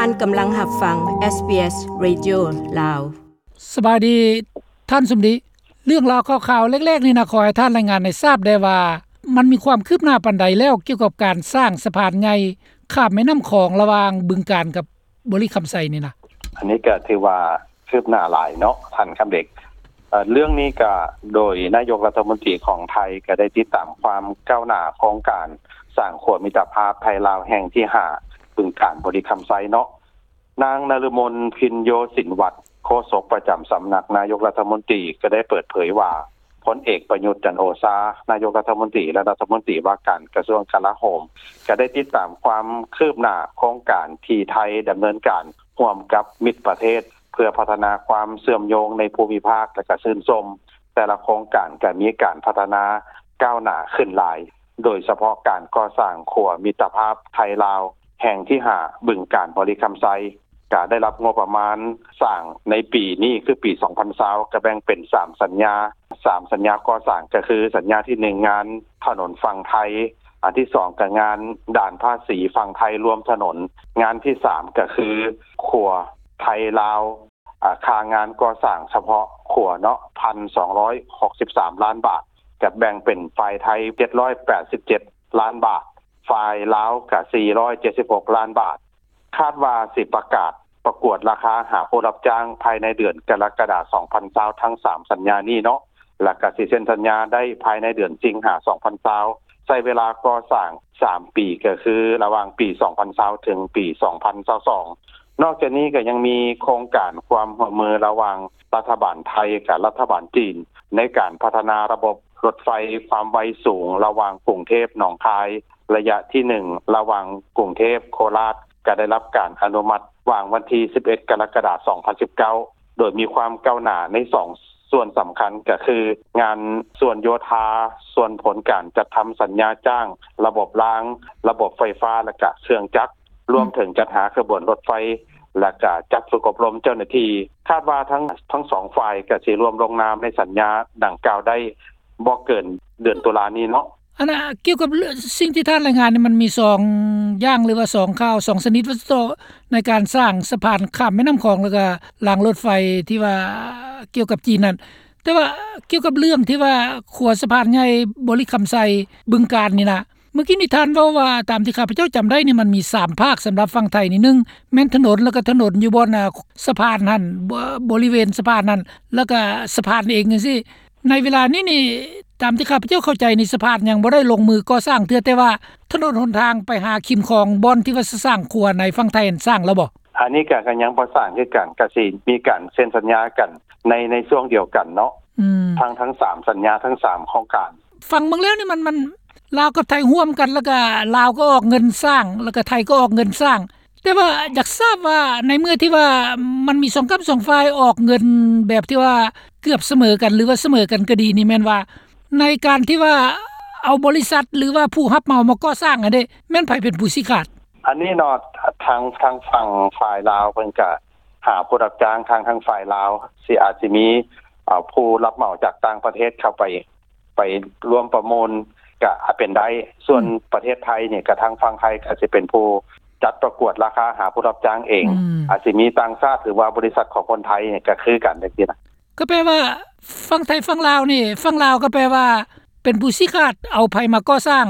ທ່ານກຳລັງຮັບຟັງ ເອສບີເອສ ເຣດິໂອ ລາວ. ສະບາຍດີທ່ານສົມດີ. ເລື່ອງລາວຂ່າວໆເລັກໆນີ້ນະ ຂໍໃຫ້ທ່ານລາຍງານໃຫ້ຊາບແດ່ວ່າ ມັນມີຄວາມຄືບໜ້າປານໃດແລ້ວ ກ່ຽວກັບການສ້າງສະພານໃຫຍ່ຂ້າມແມ່ນ້ຳຂອງ ລະຫວ່າງບຶງການກັບບໍລິຄຳໄຊນີ້ນະ? ອັນນີ້ກໍຖືວ່າຄືບໜ້າຫຼາຍເນາະທ່ານຄຳເດັກ. ເອີ ເລື່ອງນີ້ກໍໂດຍນາຍົກລັດຖະມົນຕີຂອງໄທ ກໍໄດ້ຕິດຕາມຄວາມກ້າວໜ້າໂຄງການສ້າງຂົວມິດຕະພາບໄທລາວແຫ່ງທີຫ້າ ບຶງການ ບໍລິຄຳໄຊເນາະ. ນາງນະລະມົນ ພິນໂຍສິນວັດ ໂຄສົກປະຈຳສຳນັກນາຍົກລັດຖະມົນຕີ ກໍໄດ້ເປີດເຜີຍວ່າ ພົນເອກ ປະຍຸດ ຈັນໂອຊາ ນາຍົກລັດຖະມົນຕີ ແລະ ລັດຖະມົນຕີວ່າການກະຊວງກະລາໂຫມ ກໍໄດ້ຕິດຕາມຄວາມຄືບໜ້າໂຄງການທີ່ໄທດຳເນີນການຮ່ວມກັບມິດປະເທດ ເພື່ອພັດທະນາຄວາມເຊື່ອມໂຍງໃນພູມິພາກ ແລະ ກໍຊື່ນຊົມ ແຕ່ລະໂຄງການກໍມີການພັດທະນາກ້າວໜ້າຂຶ້ນຫຼາຍ, ໂດຍສະເພາະການກໍ່ສ້າງຂົວມິດຕະພາບໄທລາວແຫ່ງທີຫ້າ ບຶງການ ບໍລິຄຳໄຊ ກະໄດ້ຮັບງົບປະມານສ້າງໃນປີນີ້ ຄືປີສອງພັນຊາວ ກະແບ່ງເປັນສາມສັນຍາ, ສາມສັນຍາກໍ່ສ້າງ ກະຄືສັນຍາທີໜຶ່ງ ງານຖະໜົນຝັ່ງໄທ, ອັນທີສອງ ກະງານດ່ານພາສີຝັ່ງໄທລວມຖະໜົນ, ງານທີສາມ ກະຄືຂົວໄທລາວ ອາ ຄ່າງານກໍ່ສ້າງສະເພາະຂົວເນາະ ພັນສອງຮ້ອຍຫົກສິບສາມລ້ານບາດ, ກະແບ່ງເປັນຝ່າຍໄທເຈັດຮ້ອຍແປດສິບເຈັດລ້ານບາດ, ຝ່າຍລາວກະສີ່ຮ້ອຍເຈັດສິບຫົກລ້ານບາດ. ຄາດວ່າຊິປະກາດປະກວດລາຄາຫາຜູ້ຮັບຈ້າງພາຍໃນເດືອນກໍລະກະດາ ສອງພັນຊາວ ທັງສາມສັນຍານີ້ເນາະ, ແລ້ວກະຊິເຊັນສັນຍາໄດ້ພາຍໃນເດືອນສິງຫາ ສອງພັນຊາວ ໃຊ້ເວລາກໍ່ສ້າງສາມປີ ກໍຄືລະຫວ່າງປີສອງພັນຊາວ ເຖິງປີສອງພັນຊາວສອງ. ນອກຈາກນີ້ກໍຍັງມີໂຄງການຄວາມຮ່ວມມືລະຫວ່າງລັດຖະບານໄທກັບລັດຖະບານຈີນ ໃນການພັດທະນາລະບົບລົດໄຟຄວາມໄວສູງລະຫວ່າງກຸງເທບ ໜອງຄາຍ ໄລຍະທີໜຶ່ງ ລະຫວ່າງກຸງເທບ ໂຄລາດ ກໍໄດ້ຮັບການອະນຸມັດຫວ່າງວັນທີສິບເອັດ ກໍລະກະດາ ສອງພັນສິບເກົ້າ ໂດຍມີຄວາມກ້າວໜ້າໃນສອງສ່ວນສຳຄັນ ກໍຄືງານສ່ວນໂຍທາ, ສ່ວນຜົນການຈັດທຳສັນຍາຈ້າງ, ລະບົບລາງ, ລະບົບໄຟຟ້າ ແລະ ກະເຄື່ອງຈັກ, ລວມເຖິງຈັດຫາຂະບວນລົດໄຟ ແລະ ກະຈັດຝຶກອົບຮົມເຈົ້າໜ້າທີ່. ຄາດວ່າທັງ ທັງສອງຝ່າຍກະຊິລວມລົງນາມໃນສັນຍາດັ່ງກ່າວໄດ້ບໍ່ເກີນເດືອນຕຸລານີ້ເນາະ. ອັນນ່າ ກ່ຽວກັບເລື່ອງ ສິ່ງທີ່ທ່ານລາຍງານນີ້ ມັນມີສອງຢ່າງ ຫຼືວ່າສອງຂ່າວ ສອງຊະນິດວ່າຊັ້ນເຖາະ ໃນການສ້າງສະພານຂ້າມແມ່ນ້ຳຂອງ ແລ້ວກະລາງລົດໄຟທີ່ວ່າກ່ຽວກັບຈີນນັ້ນ. ແຕ່ວ່າກ່ຽວກັບເລື່ອງທີ່ວ່າຂົວສະພານໃຫຍ່ບໍລິຄຳໄຊ ບຶງການນີ້ນະ, ເມື່ອກີ້ນີ້ທ່ານເວົ້າວ່າ ຕາມທີ່ຂ້າພະເຈົ້າຈຳໄດ້ນີ້ ມັນມີສາມພາກສຳລັບຝັ່ງໄທນີ້, ໜຶ່ງແມ່ນຖະໜົນ ແລ້ວກະຖະໜົນຢູ່ບ່ອນ ອາ ສະພານຫັ້ນ ບໍ ບໍລິເວນສະພານຫັ້ນ ແລ້ວກະສະພານເອງຈັ່ງຊີ້. ໃນເວລານີ້ນີ້ ຕາມທີ່ຂ້າພະເຈົ້າເຂົ້າໃຈນີ້ ສະພານຍັງບໍ່ໄດ້ລົງມືກໍ່ສ້າງເທື່ອ, ແຕ່ວ່າຖະໜົນຫົນທາງໄປຫາຂິມຂອງ ບ່ອນທີ່ວ່າຊິສ້າງຂົວໃນຝັ່ງໄທຫັ້ນ ສ້າງແລ້ວບໍ່? ອັນນີ້ກະ ກະຍັງບໍ່ສ້າງຄືກັນ, ກະຊິມີການເຊັນສັນຍາກັນໃນ ໃນຊ່ວງດຽວກັນເນາະ. ອືມ ທັງ ທັງສາມສັນຍາ ທັງສາມໂຄງການ. ຟັງເບິ່ງແລ້ວນີ້ ມັນ ມັນ ລາວກັບໄທຮ່ວມກັນ ແລ້ວກະລາວກໍອອກເງິນສ້າງ ແລ້ວກະໄທກໍອອກເງິນສ້າງ. ແຕ່ວ່າຢາກຊາບວ່າ ໃນເມື່ອທີ່ວ່າມັນມີສອງກ້ຳສອງຝ່າຍອອກເງິນແບບທີ່ວ່າເກືອບສະເໝີກັນ ຫຼືວ່າສະເໝີກັນກໍດີນີ້ ແມ່ນວ່າໃນການທີ່ວ່າເອົາບໍລິສັດ ຫຼືວ່າຜູ້ຮັບເໝົາມາກໍ່ສ້າງຫັ້ນເດ ແມ່ນໃຜເປັນຜູ້ຊີ້ຂາດ? ອັນນີ້ເນາະ ທາງ ທາງຝັ່ງຝ່າຍລາວເພິ່ນກະຫາຜູ້ຮັບຈ້າງ, ທາງ ທາງຝ່າຍລາວຊິ ອາດຊິມີ ເອີ ຜູ້ຮັບເໝົາຈາກຕ່າງປະເທດເຂົ້າໄປ ໄປຮ່ວມປະມູນກະອາດເປັນໄດ້. ສ່ວນ ອືມ ປະເທດໄທນີ້ ກະທາງຝັ່ງໄທກະຊິເປັນຜູ້ຈັດປະກວດລາຄາຫາຜູ້ຮັບຈ້າງເອງ. ອືມ ອາດຊິມີຕ່າງຊາດ ຫຼືວ່າບໍລິສັດຂອງຄົນໄທນີ້ກະຄືກັນຈັ່ງຊີ້ນະ. ກໍແປວ່າຝັ່ງໄທຝັ່ງລາວນີ້ ຝັ່ງລາວກໍແປວ່າເປັນຜູ້ຊີ້ຂາດເອົາໃຜມາກໍ່ສ້າງ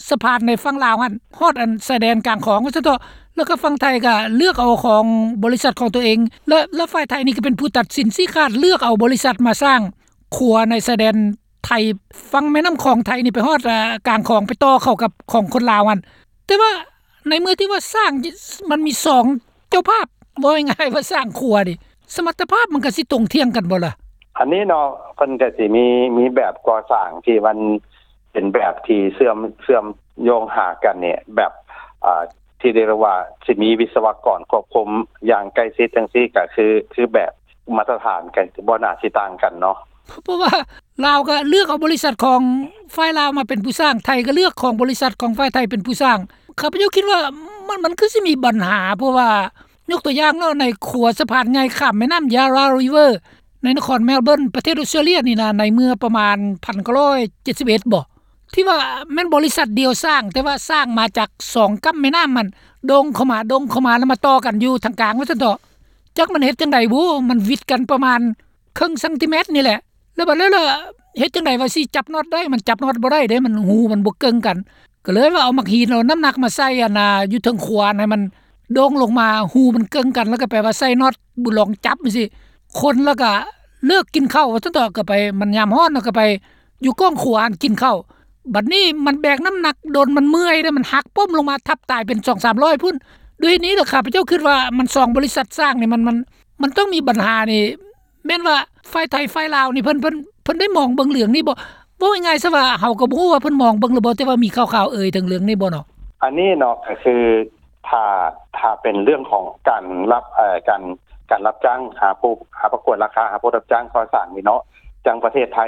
ສະພານໃນຝັ່ງລາວຫັ້ນ ຮອດອັນຊາຍແດນກາງຂອງວ່າຊັ້ນເຖາະ, ແລ້ວກໍຝັ່ງໄທກໍເລືອກເອົາຂອງບໍລິສັດຂອງຕົວເອງ ແລະ ແລະ ຝ່າຍໄທນີ້ກໍເປັນຜູ້ຕັດສິນຊີ້ຂາດເລືອກເອົາບໍລິສັດມາສ້າງ ຂົວໃນຊາຍແດນໄທ ຝັ່ງແມ່ນ້ຳຂອງໄທນີ້ໄປຮອດ ອາ ກາງຂອງ ໄປຕໍ່ເຂົ້າກັບຂອງຄົນລາວຫັ້ນ. ແຕ່ວ່າໃນເມື່ອທີ່ວ່າສ້າງ ມັນມີສອງເຈົ້າພາບ ເວົ້າງ່າຍໆວ່າສ້າງຂົວນີ້ ສະມັດຕະພາບມັນກະຊິຕົງທ່ຽງກັນບໍ່ລະ? ອັນນີ້ເນາະ ເພິ່ນກະຊິມີ ມີແບບກໍ່ສ້າງທີ່ມັນເປັນແບບທີ່ເຊື່ອມ ເຊື່ອມໂຍງຫາກັນນີ້ ແບບ ອາ ທີ່ໄດ້ເອີ້ນວ່າຊິມີວິສະວະກອນຄວບຄຸມຢ່າງໃກ້ຊິດຈັ່ງຊີ້ ກະຄື ຄືແບບມາດຕະຖານກະບໍ່ໜ້າຊິຕ່າງກັນເນາະ. ເພາະວ່າລາວກະເລືອກເອົາບໍລິສັດຂອງຝ່າຍລາວມາເປັນຜູ້ສ້າງ, ໄທກະເລືອກຂອງບໍລິສັດຂອງຝ່າຍໄທເປັນຜູ້ສ້າງ. ຂ້າພະເຈົ້າຄິດວ່າມັນ ມັນຄືຊິມີບັນຫາ, ເພາະວ່າຍົກຕົວຢ່າງເນາະ ໃນຂົວສະພານໃຫຍ່ຂ້າມແມ່ນ້ຳ Yarra River ໃນນະຄອນ Melbourne ປະເທດອອສເຕຣເລັຽນີ້ນະ ໃນເມື່ອປະມານພັນເກົ້າຮ້ອຍເຈັດສິບເອັດບໍ? ທີ່ວ່າແມ່ນບໍລິສັດດຽວສ້າງ ແຕ່ວ່າສ້າງມາຈາກສອງກຳແມ່ນ້ຳຫັ້ນ ດົງເຂົ້າມາ ດົງເຂົ້າມາ ແລ້ວມາຕໍ່ກັນຢູ່ທາງກາງວ່າຊັ້ນເຖາະ. ຈັກມັນເຮັດຈັ່ງໃດບຸ ມັນຫວິດກັນປະມານເຄິ່ງຊັງຕີແມັດນີ້ແຫຼະ. ແລ້ວບັດແລ້ວລະເຮັດຈັ່ງໃດວ່າຊິຈັບນັອດໄດ້ ມັນຈັບນັອດບໍ່ໄດ້ເດ້ ມັນຮູມັນບໍ່ເກິ່ງກັນ. ກໍເລີຍວ່າເອົາໝາກຫີນ ເອົານ້ຳໜັກມາໃສ່ອັນນ່າ ຢູ່ເທິງຂົວຫັ້ນ ໃຫ້ມັນໂດ່ງລົງມາ ຮູມັນເກິ່ງກັນ ແລ້ວກໍແປວ່າໃສ່ນັອດ ບຸລອງຈັບຈັ່ງຊີ້ ຄົນແລ້ວກໍເລີກກິນເຂົ້າວ່າຊັ້ນເຖາະ. ກໍໄປ ມັນຍາມຮ້ອນ ແລ້ວກໍໄປຢູ່ກ້ອງຂົວຫັ້ນກິນເຂົ້າ. ບັດນີ້ມັນແບກນ້ຳໜັກດົນ ມັນເມື່ອຍເດ້ ມັນຫັກປົ້ມລົງມາທັບຕາຍເປັນສອງສາມຮ້ອຍພຸ້ນ. ດ້ວຍເຫດນີ້ລະ ຂ້າພະເຈົ້າຄິດວ່າມັນສອງບໍລິສັດສ້າງນີ້ ມັນ ມັນ ມັນຕ້ອງມີບັນຫານີ້ ແມ່ນວ່າຝ່າຍໄທຝ່າຍລາວນີ້ ເພິ່ນ ເພິ່ນ ເພິ່ນໄດ້ມອງເບິ່ງເລື່ອງນີ້ບໍ່? ເວົ້າງ່າຍໆຊະວ່າ ເຮົາກໍບໍ່ຮູ້ວ່າເພິ່ນມອງເບິ່ງຫຼືບໍ່ ແຕ່ວ່າມີຂ່າວໆເອີ່ຍເຖິງເລື່ອງນີ້ບໍ່ເນາະ? ອັນນີ້ເນາະ ກໍຄືຖ້າ ຖ້າເປັນເລື່ອງຂອງການຮັບ ເອີ່ ການ ການຮັບຈ້າງຫາຜູ້ ຫາປະກວດລາຄາ ຫາຜູ້ຮັບຈ້າງກໍ່ສ້າງນີ້ເນາະ ຈັ່ງປະເທດໄທ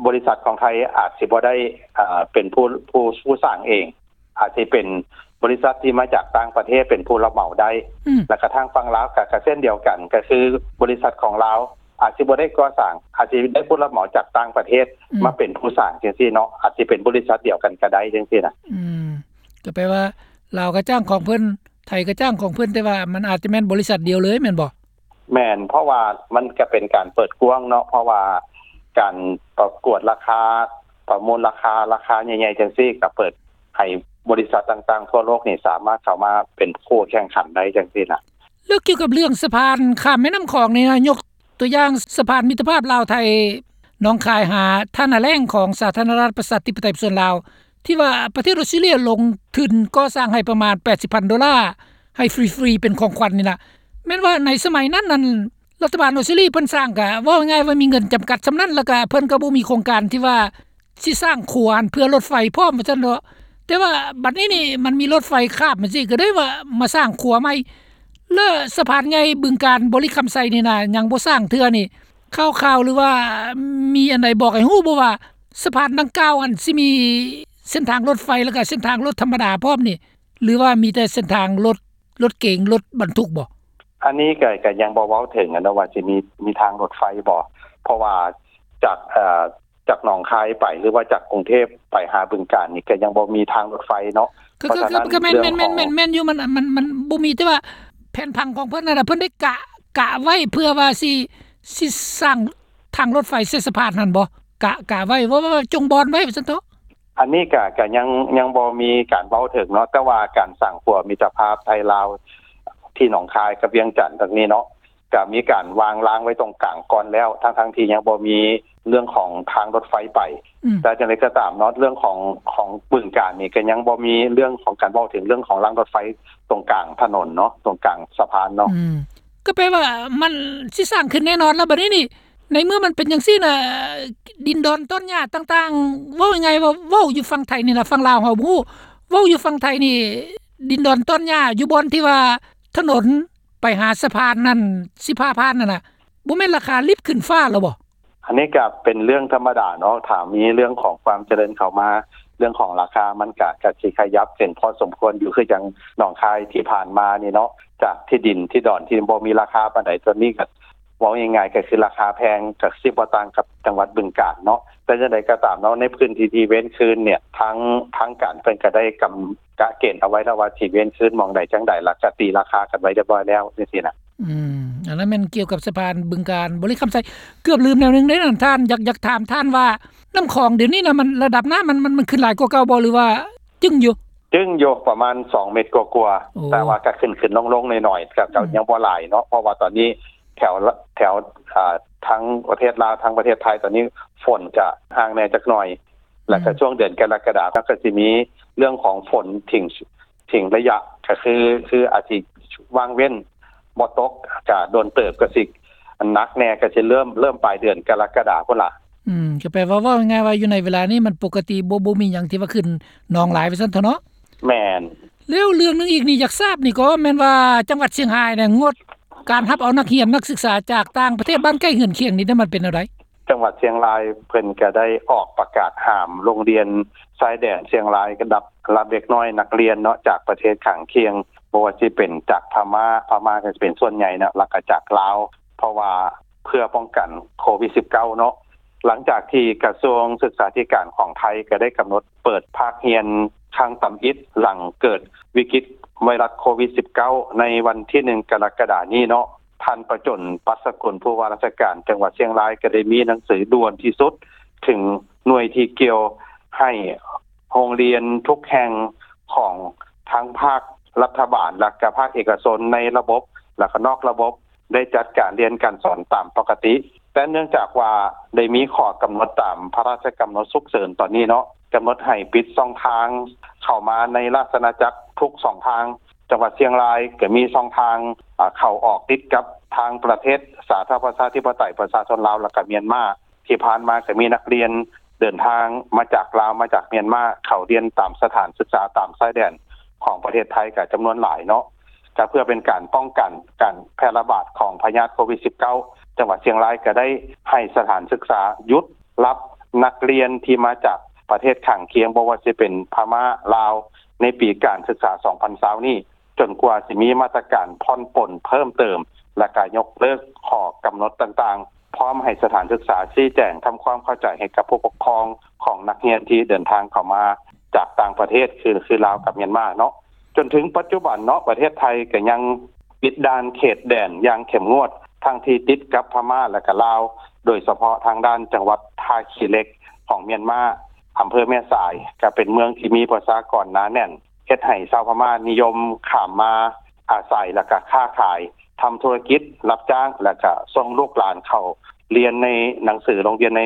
ບໍລິສັດຂອງໄທອາດຊິບໍ່ໄດ້ ເອີ່ ເປັນຜູ້ ຜູ້ ຜູ້ສ້າງເອງ ອາດຊິເປັນບໍລິສັດທີ່ມາຈາກຕ່າງປະເທດເປັນຜູ້ຮັບເໝົາໄດ້ ອືມ ແລ້ວກະທາງຝັ່ງລາວກະ ກະເຊັ່ນດຽວກັນ ກະຄືບໍລິສັດຂອງລາວອາດຊິບໍ່ໄດ້ກໍ່ສ້າງ ອາດຊິໄດ້ຜູ້ຮັບເໝົາຈາກຕ່າງປະເທດ ອືມ ມາເປັນຜູ້ສ້າງຈັ່ງຊີ້ເນາະ ອາດຊິເປັນບໍລິສັດດຽວກັນກະໄດ້ຈັ່ງຊີ້ນະ. ອືມ ກະແປວ່າລາວກະຈ້າງຂອງເພິ່ນ ໄທກະຈ້າງຂອງເພິ່ນ ແຕ່ວ່າມັນອາດຈະແມ່ນບໍລິສັດດຽວເລີຍແມ່ນບໍ່? ແມ່ນ ເພາະວ່າມັນກະເປັນການເປີດກວ້າງເນາະ ເພາະວ່າການປະກວດລາຄາ ປະມູນລາຄາ ລາຄາໃຫຍ່ໆຈັ່ງຊີ້ ກະເປີດໃຫ້ບໍລິສັດຕ່າງໆທົ່ວໂລກນີ້ສາມາດເຂົ້າມາເປັນຄູ່ແຂ່ງຂັນໄດ້ຈັ່ງຊີ້ນະ. ແລ້ວກ່ຽວກັບເລື່ອງສະພານຂ້າມແມ່ນ້ຳຂອງນີ້ນະ ຍົກຕົວຢ່າງສະພານມິດຕະພາບລາວໄທ ໜອງຄາຍຫາທ່ານາແລ້ງຂອງສາທາລະນະລັດປະຊາທິປະໄຕປະຊາຊົນລາວ ທີ່ວ່າປະເທດອອສເຕຣເລຍລົງທຶນກໍ່ສ້າງໃຫ້ປະມານແປດສິບພັນໂດລາ ໃຫ້ຟຣີໆເປັນຂອງຂວັນນີ້ນະ ແມ່ນວ່າໃນສະໄໝນັ້ນນັ້ນ ລັດຖະບານອອສເຕຣເລຍເພິ່ນສ້າງກະ ເວົ້າງ່າຍໆວ່າມີເງິນຈຳກັດສ່ຳນັ້ນ ແລ້ວກະເພິ່ນກະບໍ່ມີໂຄງການທີ່ວ່າຊິສ້າງຂົວຫັ້ນເພື່ອລົດໄຟພ້ອມວ່າຊັ້ນເນາະ. ແຕ່ວ່າບັດນີ້ນີ້ມັນມີລົດໄຟຂ້າມຈັ່ງຊີ້ ກະໄດ້ວ່າມາສ້າງຂົວໃໝ່ ແລະ ສະພານໃຫຍ່ບຶງການບໍລິຄຳໄຊນີ້ນະ ຍັງບໍ່ສ້າງເທື່ອນີ້ ຂ່າວໆ ຫຼືວ່າມີອັນໃດບອກໃຫ້ຮູ້ບໍ່ວ່າ ສະພານດັ່ງກ່າວຫັ້ນຊິມີເສັ້ນທາງລົດໄຟ ແລ້ວກະເສັ້ນທາງລົດທຳມະດາພ້ອມນີ້ ຫຼືວ່າມີແຕ່ເສັ້ນທາງລົດ ລົດເກງ ລົດບັນທຸກບໍ່? ອັນນີ້ກະ ກະຍັງບໍ່ເວົ້າເຖິງຫັ້ນເນາະວ່າຊິມີ ມີທາງລົດໄຟບໍ່ ເພາະວ່າຈາກ ເອີ່ ຈາກໜອງຄາຍໄປ ຫຼືວ່າຈາກກຸງເທບໄປຫາບຶງການນີ້ ກະຍັງບໍ່ມີທາງລົດໄຟເນາະ. ກະ ກະ ກະແມ່ນ ແມ່ນ ແມ່ນ ແມ່ນຢູ່ ມັນ ມັນ ມັນບໍ່ມີ ແຕ່ວ່າແຜນຜັງຂອງເພິ່ນນັ້ນນະ ເພິ່ນໄດ້ກະ ກະໄວ້ເພື່ອວ່າຊິ ຊິສ້າງທາງລົດໄຟເສດສະພານຫັ້ນບໍ່? ກະ ກະໄວ້ ວ່າ ວ່າ ວ່າຈົ່ງບ່ອນໄວ້ວ່າຊັ້ນເຖາະ. ອັນນີ້ກະ ກະຍັງ ຍັງບໍ່ມີການເວົ້າເຖິງເນາະ ແຕ່ວ່າການສ້າງຂົວມິດຕະພາບໄທລາວ ທີ່ໜອງຄາຍກັບວຽງຈັນຕົງນີ້ເນາະ ກະມີການວາງລາງໄວ້ຕົງກາງກ່ອນແລ້ວ ທັງໆທີ່ຍັງບໍ່ມີເລື່ອງຂອງທາງລົດໄຟໄປ. ອືມ ແຕ່ຈັ່ງໃດກໍຕາມເນາະ ເລື່ອງຂອງ ຂອງບຶງການນີ້ກະຍັງບໍ່ມີເລື່ອງຂອງການເວົ້າເຖິງເລື່ອງຂອງລາງລົດໄຟຕົງກາງຖະໜົນເນາະ ຕົງກາງສະພານເນາະ. ອືມ ກໍແປວ່າມັນຊິສ້າງຂຶ້ນແນ່ນອນລະ ບັດນີ້ນີ້ ໃນເມື່ອມັນເປັນຈັ່ງຊີ້ນະ ດິນດອນຕອນຫຍ້າຕ່າງໆ ເວົ້າງ່າຍໆວ່າ ເວົ້າຢູ່ຝັ່ງໄທນີ້ລະ ຝັ່ງລາວເຮົາບໍ່ຮູ້ ເວົ້າຢູ່ຝັ່ງໄທນີ້ ດິນດອນຕອນຫຍ້າຢູ່ບ່ອນທີ່ວ່າຖະໜົນໄປຫາສະພານນັ້ນ ສິບຫ້າຜ່ານນັ້ນນະ ບໍ່ແມ່ນລາຄາລິບຂຶ້ນຟ້າແລ້ວບໍ່? ອັນນີ້ກະເປັນເລື່ອງທຳມະດາເນາະ ຖ້າມີເລື່ອງຂອງຄວາມຈະເລີນເຂົ້າມາ ເລື່ອງຂອງລາຄາມັນກະ ກະຊິຂະຫຍັບຂຶ້ນພໍສົມຄວນຢູ່ ຄືຈັ່ງໜອງຄາຍທີ່ຜ່ານມານີ້ເນາະ ຈາກທີ່ດິນທີ່ດອນທີ່ບໍ່ມີລາຄາປານໃດ ຕອນນີ້ກະ ເວົ້າງ່າຍໆ ກະຄືລາຄາແພງ ກະຊິບໍ່ຕ່າງກັບຈັງຫວັດບຶງການເນາະ. ແຕ່ຈັ່ງໃດກໍຕາມເນາະ ໃນພື້ນທີ່ທີ່ເວັ້ນຄືນເນ່ຍ ທາງ ທາງການເພິ່ນກະໄດ້ກຳ ກະເກນເອົາໄວ້ແລ້ວວ່າຊິເວັ້ນຄືນໝ່ອງໃດຈັ່ງໃດ ແລ້ວກະຕີລາຄາກັນໄວ້ຮຽບຮ້ອຍແລ້ວຈັ່ງຊີ້ນະ. ອືມ ອັນນັ້ນແມ່ນກ່ຽວກັບສະພານບຶງການບໍລິຄຳໄຊ. ເກືອບລືມແນວໜຶ່ງເດ້ນະທ່ານ ຢາກ ຢາກຖາມທ່ານວ່າ ນ້ຳຂອງດຽວນີ້ນະ ມັນ ລະດັບນ້ຳມັນ ມັນ ມັນຂຶ້ນຫຼາຍກວ່າເກົ່າບໍ່ ຫຼືວ່າ ຈຶ່ງຢູ່? ຈຶ່ງຢູ່ປະມານສອງເມັດກວ່າໆ ໂອ້ ແຕ່ວ່າກະຂຶ້ນໆລົງໆໜ້ອຍໆ ກະ ກະ ອືມ ຍັງບໍ່ຫຼາຍເນາະ ເພາະວ່າຕອນນີ້ແຖວ ແຖວ ອ່າ ທາງປະເທດລາວ ທາງປະເທດໄທ ຕອນນີ້ຝົນຈະຫ່າງແດ່ຈັກໜ່ອຍ ແລ້ວກະ ອືມ ຊ່ວງເດືອນກໍລະກະດາ ເຮົາກະຊິມີເລື່ອງຂອງຝົນຖິ້ມ ຖິ້ມໄລຍະ ກະຄື ຄືອາດຊິວ່າງເວັ້ນ ບໍ່ຕົກກະດົນເຕີບ ກະຊິໜັກແດ່ ກະຊິເລີ່ມ ເລີ່ມປາຍເດືອນກໍລະກະດາພຸ້ນລະ. ອືມ ກະແປວ່າ ເວົ້າງ່າຍໆວ່າຢູ່ໃນເວລານີ້ມັນປົກກະຕິ ບໍ່ ບໍ່ມີຫຍັງທີ່ວ່າຂຶ້ນນອງຫຼາຍວ່າຊັ້ນເຖາະເນາະ. ແມ່ນ. ແລ້ວເລື່ອງໜຶ່ງອີກນີ້ ຢາກຊາບນີ້ກໍແມ່ນວ່າ ຈັງຫວັດຊຽງຮາຍນີ້ງົດການຮັບເອົານັກຮຽນນັກສຶກສາຈາກຕ່າງປະເທດບ້ານໃກ້ເຮືອນຄຽງນີ້ ມັນເປັນແນວໃດ? ຈັງຫວັດຊຽງລາຍເພິ່ນກະໄດ້ອອກປະກາດຫ້າມໂຮງຮຽນຊາຍແດນຊຽງລາຍ ກັບຮັບເດັກນ້ອຍນັກຮຽນເນາະ ຈາກປະເທດຂ້າງຄຽງ ບໍ່ວ່າຊິເປັນຈາກພະມ້າ ພະມ້າກະຊິເປັນສ່ວນໃຫຍ່ເນາະ ແລ້ວກະຈາກລາວ ເພາະວ່າເພື່ອປ້ອງກັນໂຄວິດສິບເກົ້າເນາະ ຫຼັງຈາກທີ່ກະຊວງສຶກສາທິການຂອງໄທ ກໍໄດ້ກຳນົດເປີດພາກຮຽນຄັ້ງທຳອິດ ຫຼັງເກີດວິກິດໄວຣັສໂຄວິດ-19 ໃນວັນທີ ໜຶ່ງ ກໍລະກະດານີ້ເນາະ, ທ່ານ ປະຈົນ ປັດສະກຸນ ຜູ້ວ່າລາຊະການຈັງຫວັດຊຽງລາຍ ກໍໄດ້ມີໜັງສືດ່ວນທີ່ສຸດເຖິງໜ່ວຍທີ່ກ່ຽວ ໃຫ້ໂຮງຮຽນທຸກແຫ່ງຂອງທັງພາກລັດຖະບານ ແລະກະພາກເອກະຊົນ ໃນລະບົບ ແລະກະນອກລະບົບ ໄດ້ຈັດການຮຽນການສອນຕາມປົກກະຕິ. ແຕ່ເນື່ອງຈາກວ່າໄດ້ມີຂໍ້ກຳນົດຕາມພະລາຊະກຳນົດສຸກເສີນຕອນນີ້ເນາະ, ກຳນົດໃຫ້ປິດຊ່ອງທາງເຂົ້າມາໃນລາຊະອານາຈັກທຸກຊ່ອງທາງ. ຈັງຫວັດຊຽງລາຍກໍມີຊ່ອງທາງ ອາ ເຂົ້າອອກຕິດກັບທາງປະເທດສາທາລະນະລັດປະຊາທິປະໄຕປະຊາຊົນລາວ ແລະກະມຽນມາ. ທີ່ຜ່ານມາກໍມີນັກຮຽນເດີນທາງມາຈາກລາວ ມາຈາກມຽນມາ ເຂົ້າຮຽນຕາມສະຖານສຶກສາຕາມຊາຍແດນຂອງປະເທດໄທກໍຈຳນວນຫຼາຍເນາະ. ກໍເພື່ອເປັນການປ້ອງກັນການແຜ່ລະບາດຂອງພະຍາດໂຄວິດ-19, ຈັງຫວັດຊຽງລາຍກໍໄດ້ໃຫ້ສະຖານສຶກສາຢຸດຮັບນັກຮຽນທີ່ມາຈາກປະເທດຂ້າງຄຽງ ບໍ່ວ່າຊິເປັນພະມ້າ, ລາວ ໃນປີການສຶກສາສອງພັນຊາວນີ້ ຈົນກວ່າຊິມີມາດຕະການຜ່ອນປົນເພີ່ມເຕີມ ແລະກະຍົກເລີກຂໍ້ກຳນົດຕ່າງໆ, ພ້ອມໃຫ້ສະຖານສຶກສາຊີ້ແຈງທຳຄວາມເຂົ້າໃຈໃຫ້ກັບຜູ້ປົກຄອງຂອງນັກຮຽນທີ່ເດີນທາງເຂົ້າມາຈາກຕ່າງປະເທດ ຄື ຄືລາວກັບມຽນມາເນາະ. ຈົນເຖິງປັດຈຸບັນເນາະ, ປະເທດໄທກໍຍັງປິດດ່ານເຂດແດນຢ່າງເຂັ້ມງວດ ທັງທີ່ຕິດກັບພະມ້າ ແລະກະລາວ, ໂດຍສະເພາະທາງດ້ານຈັງຫວັດທ່າຂີ້ເຫຼັກຂອງມຽນມາ, ອຳເພີແມ່ສາຍ ກໍເປັນເມືອງທີ່ມີປະຊາກອນໜາແໜ້ນ, ເຮັດໃຫ້ຊາວພະມ້ານິຍົມຂ້າມມາອາໄສ ແລະກະຄ້າຂາຍ, ທຳທຸລະກິດ ຮັບຈ້າງ ແລະກະສົ່ງລູກຫຼານເຂົ້າຮຽນໃນໜັງສືໂຮງຮຽນໃນ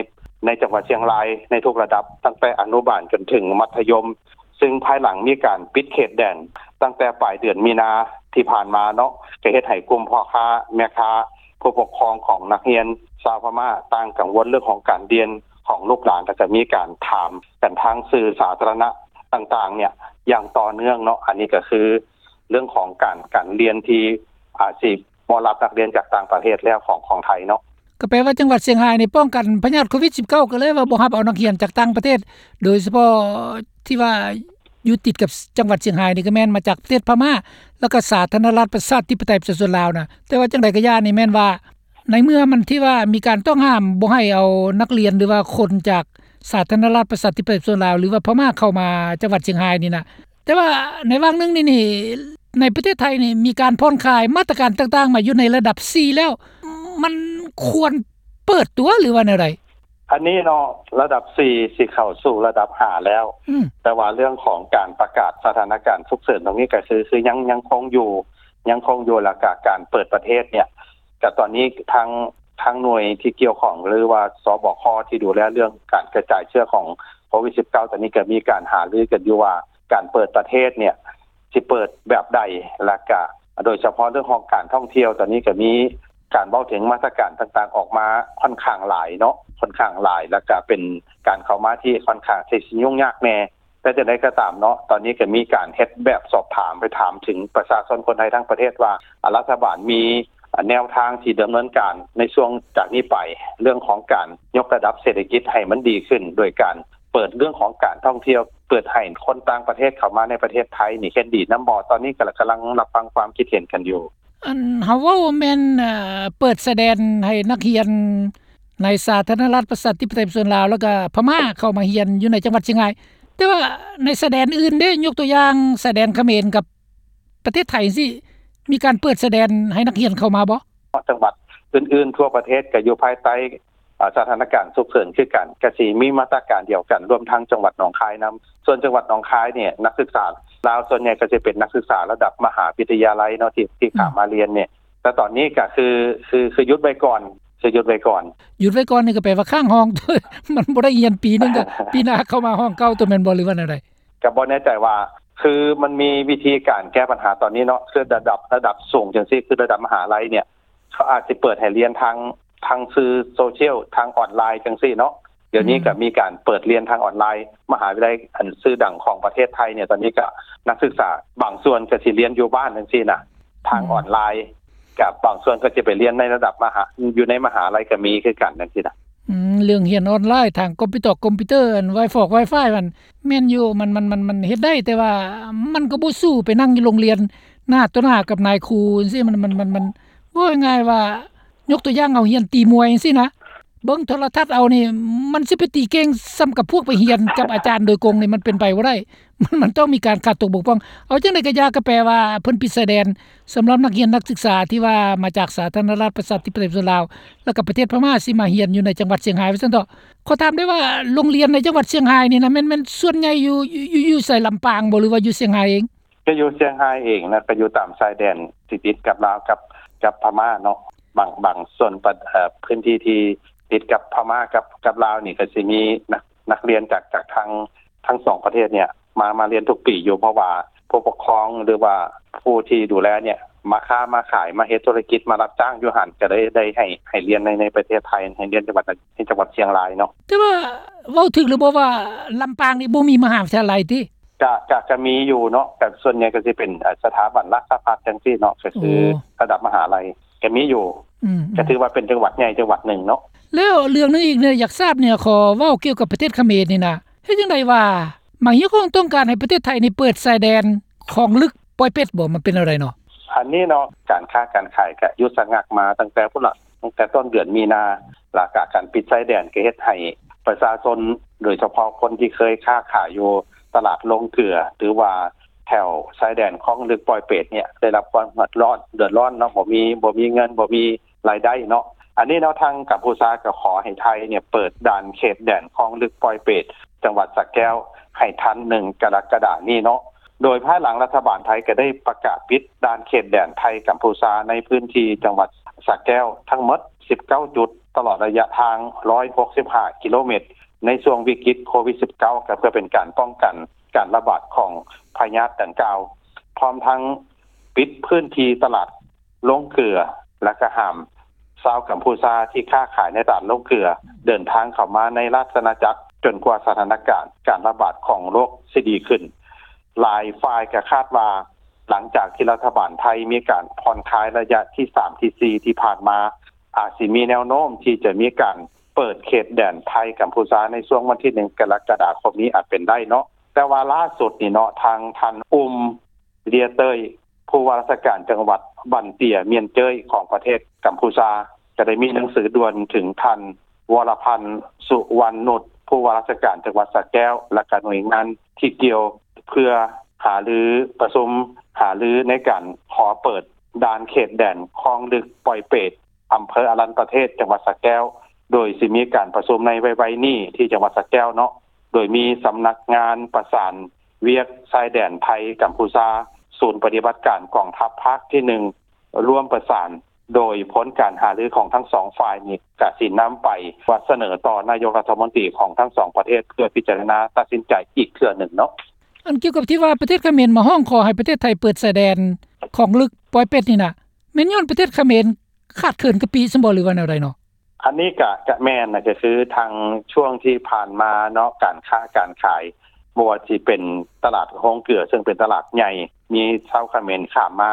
ໃນຈັງຫວັດຊຽງລາຍໃນທຸກລະດັບ ຕັ້ງແຕ່ອະນຸບານຈົນເຖິງມັດທະຍົມ, ຊຶ່ງພາຍຫຼັງມີການປິດເຂດແດນຕັ້ງແຕ່ປາຍເດືອນມີນາທີ່ຜ່ານມາເນາະ, ກໍເຮັດໃຫ້ກຸ່ມພໍ່ຄ້າແມ່ຄ້າ ຜູ້ປົກຄອງຂອງນັກຮຽນຊາວພະມ້າຕ່າງກັງວົນເລື່ອງຂອງການຮຽນຂອງລູກຫຼານ ແລະກະມີການຖາມກັນທາງສື່ສາທາລະນະຕ່າງໆເນຍຢ່າງຕໍ່ເນື່ອງເນາະ. ອັນນີ້ກໍຄືເລື່ອງຂອງການ ການຮຽນທີ່ອາດຊິບໍ່ຮັບນັກຮຽນຈາກຕ່າງປະເທດແລ້ວຂອງ ຂອງໄທເນາະ. ກໍແປວ່າຈັງຫວັດຊຽງຮາຍນີ້ປ້ອງກັນພະຍາດໂຄວິດ-19 ກໍເລີຍວ່າບໍ່ຮັບເອົານັກຮຽນຈາກຕ່າງປະເທດ, ໂດຍສະເພາະທີ່ວ່າຢູ່ຕິດກັບຈັງຫວັດຊຽງຮາຍນີ້ກໍແມ່ນມາຈາກປະເທດພະມ້າ ແລ້ວກໍສາທາລະນະລັດປະຊາທິປະໄຕປະຊາຊົນລາວນະ. ແຕ່ວ່າຈັ່ງໃດກໍຢ່າ ນີ້ແມ່ນວ່າໃນເມື່ອມັນທີ່ວ່າມີການຕ້ອງຫ້າມບໍ່ໃຫ້ເອົານັກຮຽນ ຫຼືວ່າຄົນຈາກສາທາລະນະລັດປະຊາທິປະໄຕປະຊາຊົນລາວ ຫຼືວ່າພະມ້າເຂົ້າມາຈັງຫວັດຊຽງຮາຍນີ້ນະ, ແຕ່ວ່າໃນຫວ່າງໜຶ່ງນີ້ ນີ້ ໃນປະເທດໄທນີ້ມີການຜ່ອນຄາຍມາດຕະການຕ່າງໆມາຢູ່ໃນລະດັບສີ່ແລ້ວ, ມັນຄວນເປີດຕົວ ຫຼືວ່າແນວໃດ? ອັນນີ້ເນາະ ລະດັບສີ່ຊິເຂົ້າສູ່ລະດັບຫ້າແລ້ວ, ອືມ ແຕ່ວ່າເລື່ອງຂອງການປະກາດສະຖານະການສຸກເສີນຕົງນີ້ກໍຄື ຄືຍັງ ຍັງຄົງຢູ່ ຍັງຄົງຢູ່ ແລ້ວກະການເປີດປະເທດເນຍ ກະຕອນນີ້ທາງ ທາງໜ່ວຍທີ່ກ່ຽວຂ້ອງ ຫຼືວ່າ ສບຄ ທີ່ດູແລເລື່ອງການກະຈາຍເຊື້ອຂອງໂຄວິດ-19 ຕອນນີ້ກໍມີການຫາລືກັນຢູ່ວ່າ ການເປີດປະເທດເນຍຊິເປີດແບບໃດ ແລ້ວກະໂດຍສະເພາະເລື່ອງຂອງການທ່ອງທ່ຽວ ຕອນນີ້ກໍມີການເວົ້າເຖິງມາດຕະການຕ່າງໆອອກມາຂ້ອນຂ້າງຫຼາຍເນາະ, ຂ້ອນຂ້າງຫຼາຍ ແລ້ວກະເປັນການເຂົ້າມາທີ່ຂ້ອນຂ້າງທີ່ຊິຫຍຸ້ງຍາກແດ່. ແຕ່ຈັ່ງໃດກໍຕາມເນາະ, ຕອນນີ້ກໍມີການເຮັດແບບສອບຖາມ ໄປຖາມເຖິງປະຊາຊົນຄົນໄທທັງປະເທດວ່າ ອາ ລັດຖະບານມີ ອາ ແນວທາງທີ່ດຳເນີນການໃນຊ່ວງຈາກນີ້ໄປ ເລື່ອງຂອງການຍົກລະດັບເສດຖະກິດໃຫ້ມັນດີຂຶ້ນ ໂດຍການເປີດເລື່ອງຂອງການທ່ອງທ່ຽວ, ເປີດໃຫ້ຄົນຕ່າງປະເທດເຂົ້າມາໃນປະເທດໄທນີ້ເຫັນດີນຳບໍ່? ຕອນນີ້ກໍກຳລັງຮັບຟັງຄວາມຄິດເຫັນກັນຢູ່. ອັນເຮົາເວົ້າແມ່ນ ເອີ ເປີດຊາຍແດນໃຫ້ນັກຮຽນໃນສາທາລະນະລັດປະຊາທິປະໄຕປະຊາຊົນລາວ ແລ້ວກະພະມ້າເຂົ້າມາຮຽນຢູ່ໃນຈັງຫວັດຊຽງຮາຍ, ແຕ່ວ່າໃນຊາຍແດນອື່ນເດ້, ຍົກຕົວຢ່າງຊາຍແດນຂະເໝນກັບປະເທດໄທຈັ່ງຊີ້ ມີການເປີດຊາຍແດນໃຫ້ນັກຮຽນເຂົ້າມາບໍ່? ຈັງຫວັດອື່ນໆທົ່ວປະເທດກໍຢູ່ພາຍໃຕ້ ອາ ສະຖານະການສຸກເສີນຄືກັນ, ກະຊິມີມາດຕະການດຽວກັນ, ລວມທັງຈັງຫວັດໜອງຄາຍນຳ. ສ່ວນຈັງຫວັດໜອງຄາຍນີ້ ນັກສຶກສາລາວສ່ວນໃຫຍ່ກໍຊິເປັນນັກສຶກສາລະດັບມະຫາວິທະຍາໄລເນາະ ທີ່ ທີ່ ອືມ ຂ້າມມາຮຽນນີ້ ແຕ່ຕອນນີ້ກໍຄື ຄື ຄືຢຸດໄວ້ກ່ອນ, ຄືຢຸດໄວ້ກ່ອນ. ຢຸດໄວ້ກ່ອນນີ້ກໍແປວ່າຄ້າງຫ້ອງ ມັນບໍ່ໄດ້ຮຽນປີໜຶ່ງ ກໍປີໜ້າເຂົ້າມາຫ້ອງເກົ່າຕົວ ແມ່ນບໍ່ ຫຼືວ່າແນວໃດ? ກໍບໍ່ແນ່ໃຈວ່າ ຄືມັນມີວິທີການແກ້ບັນຫາຕອນນີ້ເນາະ, ຄືລະດັບ ລະດັບສູງຈັ່ງຊີ້ ຄືລະດັບມະຫາໄລເນຍ ເຂົາອາດຊິເປີດໃຫ້ຮຽນທາງ ທາງສື່ໂຊຊຽວ ທາງອອນລາຍຈັ່ງຊີ້ເນາະ. ດຽວນີ້ ອືມ ກໍມີການເປີດຮຽນທາງອອນລາຍ, ມະຫາວິທະຍາໄລອັນຊື່ດັງຂອງປະເທດໄທເນຍ ຕອນນີ້ກໍນັກສຶກສາບາງສ່ວນກໍຊິຮຽນຢູ່ບ້ານຈັ່ງຊີ້ນະ ທາງ ອືມ ອອນລາຍ, ກັບບາງສ່ວນກໍຈະໄປຮຽນໃນລະດັບມະຫາ ຢູ່ໃນມະຫາໄລກໍມີຄືກັນຈັ່ງຊີ້ນະ. ອືມ ເລື່ອງຮຽນອອນລາຍທາງຄອມພິວເຕີ ຄອມພິວເຕີ ອັນ Wi-Fi ແມ່ນຢູ່ ມັນ ມັນ ມັນ ມັນເຮັດໄດ້, ແຕ່ວ່າມັນກໍບໍ່ສູ້ໄປນັ່ງຢູ່ໂຮງຮຽນໜ້າຕໍ່ໜ້າກັບນາຍຄູຈັ່ງຊີ້. ມັນ ມັນ ມັນ ມັນ ເວົ້າງ່າຍໆວ່າ ຍົກຕົວຢ່າງເຮົາຮຽນຕີມວຍຈັ່ງຊີ້ນະ, ເບິ່ງໂທລະທັດເອົານີ້ ມັນຊິໄປຕີເກັ່ງສ່ຳກັບພວກໄປຮຽນກັບອາຈານໂດຍກົງນີ້ ມັນເປັນໄປບໍ່ໄດ້. ມັນ ມັນຕ້ອງມີການຂາດຕົກບົກຜ່ອງ. ເອົາຈັ່ງໃດກໍຢ່າ ກໍແປວ່າເພິ່ນປິດຊາຍແດນ ສຳລັບນັກຮຽນນັກສຶກສາທີ່ວ່າມາຈາກສາທາລະນະລັດປະຊາທິປະໄຕປະຊາຊົນລາວ ແລ້ວກໍປະເທດພະມ້າ ຊິມາຮຽນຢູ່ໃນຈັງຫວັດຊຽງຮາຍ ວ່າຊັ້ນເຖາະ. ຂໍຖາມໄດ້ວ່າ ໂຮງຮຽນໃນຈັງຫວັດຊຽງຮາຍນີ້ນະ ແມ່ນ ແມ່ນສ່ວນໃຫຍ່ຢູ່ ຢູ່ ຢູ່ໃສ ລຳປາງບໍ່ ຫຼືວ່າຢູ່ຊຽງຮາຍເອງ? ກໍຢູ່ຊຽງຮາຍເອງນະ ກໍຢູ່ຕາມຊາຍແດນທີ່ຕິດກັບລາວກັບ ກັບພະມ້າເນາະ. ບາງ ບາງສ່ວນປະ ເອີ ພື້ນທີ່ທີ່ຕິດກັບພະມ້າກັບ ກັບລາວນີ້ ກໍຊິມີນັກ ນັກຮຽນຈາກ ຈາກທັງ ທັງສອງປະເທດເນີ້ຍ ມາ ມາຮຽນທຸກປີຢູ່ ເພາະວ່າຜູ້ປົກຄອງ ຫຼືວ່າຜູ້ທີ່ດູແລເນີ້ຍ ມາຄ້າມາຂາຍ ມາເຮັດທຸລະກິດ ມາຮັບຈ້າງຢູ່ຫັ້ນ ກໍໄດ້ ໄດ້ໃຫ້ ໃຫ້ຮຽນໃນ ໃນປະເທດໄທ ໃຫ້ຮຽນຈັງຫວັດ ໃນຈັງຫວັດຊຽງລາຍເນາະ. ແຕ່ວ່າເວົ້າຖືກຫຼືບໍ່ວ່າ ລຳປາງນີ້ບໍ່ມີມະຫາວິທະຍາໄລຕິ? ກະ ກະ ກະມີຢູ່ເນາະ ກະສ່ວນໃຫຍ່ກໍຊິເປັນ ເອີ ສະຖາບັນຫຼັກສະພັດຈັ່ງຊີ້ເນາະ ກໍຄື ໂອ້ ລະດັບມະຫາໄລກໍມີຢູ່ ອືມ ກໍຖືວ່າເປັນຈັງຫວັດໃຫຍ່ຈັງຫວັດໜຶ່ງເນາະ. ແລ້ວເລື່ອງໜຶ່ງອີກເນາະ ຢາກຊາບເນຍ ຂໍເວົ້າກ່ຽວກັບປະເທດຂະເໝນນີ້ນະ ເຮັດຈັ່ງໃດວ່າ ມາຮຽກຮ້ອງຕ້ອງການໃຫ້ປະເທດໄທນີ້ເປີດຊາຍແດນຄອງລຶກ ປອຍເປັດ ບໍ່ ມັນເປັນແນວໃດເນາະ? ອັນນີ້ເນາະ ການຄ້າການຂາຍກະຢຸດຊະງັກມາຕັ້ງແຕ່ພຸ້ນລະ ຕັ້ງແຕ່ຕົ້ນເດືອນມີນາ ແລ້ວກະການປິດຊາຍແດນກໍເຮັດໃຫ້ປະຊາຊົນ ໂດຍສະເພາະຄົນທີ່ເຄີຍຄ້າຂາຍຢູ່ຕະຫຼາດໂລງເກືອ ຫຼືວ່າແຖວຊາຍແດນຄອງລຶກ ປອຍເປັດ ເນີ້ຍ ໄດ້ຮັບຄວາມເດືອດຮ້ອນ ເດືອດຮ້ອນເນາະ ບໍ່ມີ ບໍ່ມີເງິນ ບໍ່ມີລາຍໄດ້ເນາະ. ອັນນີ້ເນາະ ທາງກຳພູຊາກໍຂໍໃຫ້ໄທເນີ້ຍ ເປີດດ່ານເຂດແດນຄອງລຶກ ປອຍເປັດ ຈັງຫວັດສະແກ້ວ ໃຫ້ທັນ ໜຶ່ງ ກໍລະກະດານີ້ເນາະ. ໂດຍພາຍຫຼັງລັດຖະບານໄທກໍໄດ້ປະກາດປິດດ່ານເຂດແດນໄທ-ກຳພູຊາ ໃນພື້ນທີ່ຈັງຫວັດສະແກ້ວທັງໝົດ ສິບເກົ້າ ຈຸດ ຕະຫຼອດໄລຍະທາງ ຮ້ອຍຫົກສິບຫ້າ ກິໂລເມັດ ໃນຊ່ວງວິກິດໂຄວິດ ສິບເກົ້າ ກໍເພື່ອເປັນການປ້ອງກັນການລະບາດຂອງພະຍາດດັ່ງກ່າວ ພ້ອມທັງປິດພື້ນທີ່ຕະຫຼາດໂລງເກືອ ແລະ ກໍຫ້າມຊາວກຳພູຊາທີ່ຄ້າຂາຍໃນຕະຫຼາດໂລງເກືອ ເດີນທາງເຂົ້າມາໃນລາຊະອານາຈັກ ຈົນກວ່າສະຖານະການການລະບາດຂອງໂລກຊິດີຂຶ້ນ. ຫຼາຍຝ່າຍກໍຄາດວ່າ ຫຼັງຈາກທີ່ລັດຖະບານໄທມີການຜ່ອນຄາຍໄລຍະທີສາມ ທີສີ່ ທີ່ຜ່ານມາ ອາດຊິມີແນວໂນ້ມທີ່ຈະມີການເປີດເຂດແດນໄທ-ກຳພູຊາ ໃນຊ່ວງວັນທີ ໜຶ່ງ ກໍລະກະດາຄົມນີ້ອາດເປັນໄດ້ເນາະ. ແຕ່ວ່າລ່າສຸດນີ້ເນາະ ທາງທ່ານ ອຸມ ເລຍເຕີຍ ຜູ້ວ່າລາຊະການຈັງຫວັດບັນເຕຍ ມຽນເຈີຍ ຂອງປະເທດກຳພູຊາ ກໍໄດ້ມີໜັງສືດ່ວນເຖິງທ່ານ ວໍລະພັນ ສຸວັນນຸດ ຜູ້ວ່າລາຊະການຈັງຫວັດສະແກ້ວ ແລະ ກະໜ່ວຍງານທີ່ກ່ຽວ ເພື່ອຫາລື ປະຊຸມຫາລືໃນການຂໍເປີດດ່ານເຂດແດນຄອງລຶກ ປອຍເປດ ອຳເພີອະລັນປະເທດ ຈັງຫວັດສະແກ້ວ ໂດຍຊິມີການປະຊຸມໃນໄວໆນີ້ທີ່ຈັງຫວັດສະແກ້ວເນາະ ໂດຍມີສຳນັກງານປະສານວຽກຊາຍແດນໄທ-ກຳພູຊາ, ສູນປະຕິບັດການກອງທັບພາກທີໜຶ່ງ ຮ່ວມປະສານ ໂດຍຜົນການຫາລືຂອງທັງສອງຝ່າຍນີ້ ກະຊິນຳໄປສະເໜີຕໍ່ນາຍົກລັດຖະມົນຕີຂອງທັງສອງປະເທດ ເພື່ອພິຈາລະນາຕັດສິນໃຈອີກເທື່ອໜຶ່ງເນາະ. ອັນກ່ຽວກັບທີ່ວ່າປະເທດຂະເໝນມາຮ້ອງຂໍໃຫ້ປະເທດໄທເປີດຊາຍແດນຄອງລຶກ ປອຍເປັດ ນີ້ນະ ແມ່ນຍ້ອນປະເທດຂະເໝນຂາດເຂີນກະປິຊັ້ນບໍ່ ຫຼືວ່າແນວໃດເນາະ? ອັນນີ້ກະ ກະແມ່ນນະ ກະຄືທາງຊ່ວງທີ່ຜ່ານມາເນາະ ການຄ້າການຂາຍ ບໍ່ວ່າຊິເປັນຕະຫຼາດໂຮງເກືອ ເຊິ່ງເປັນຕະຫຼາດໃຫຍ່ ມີຊາວຂະເໝນຂ້າມມາ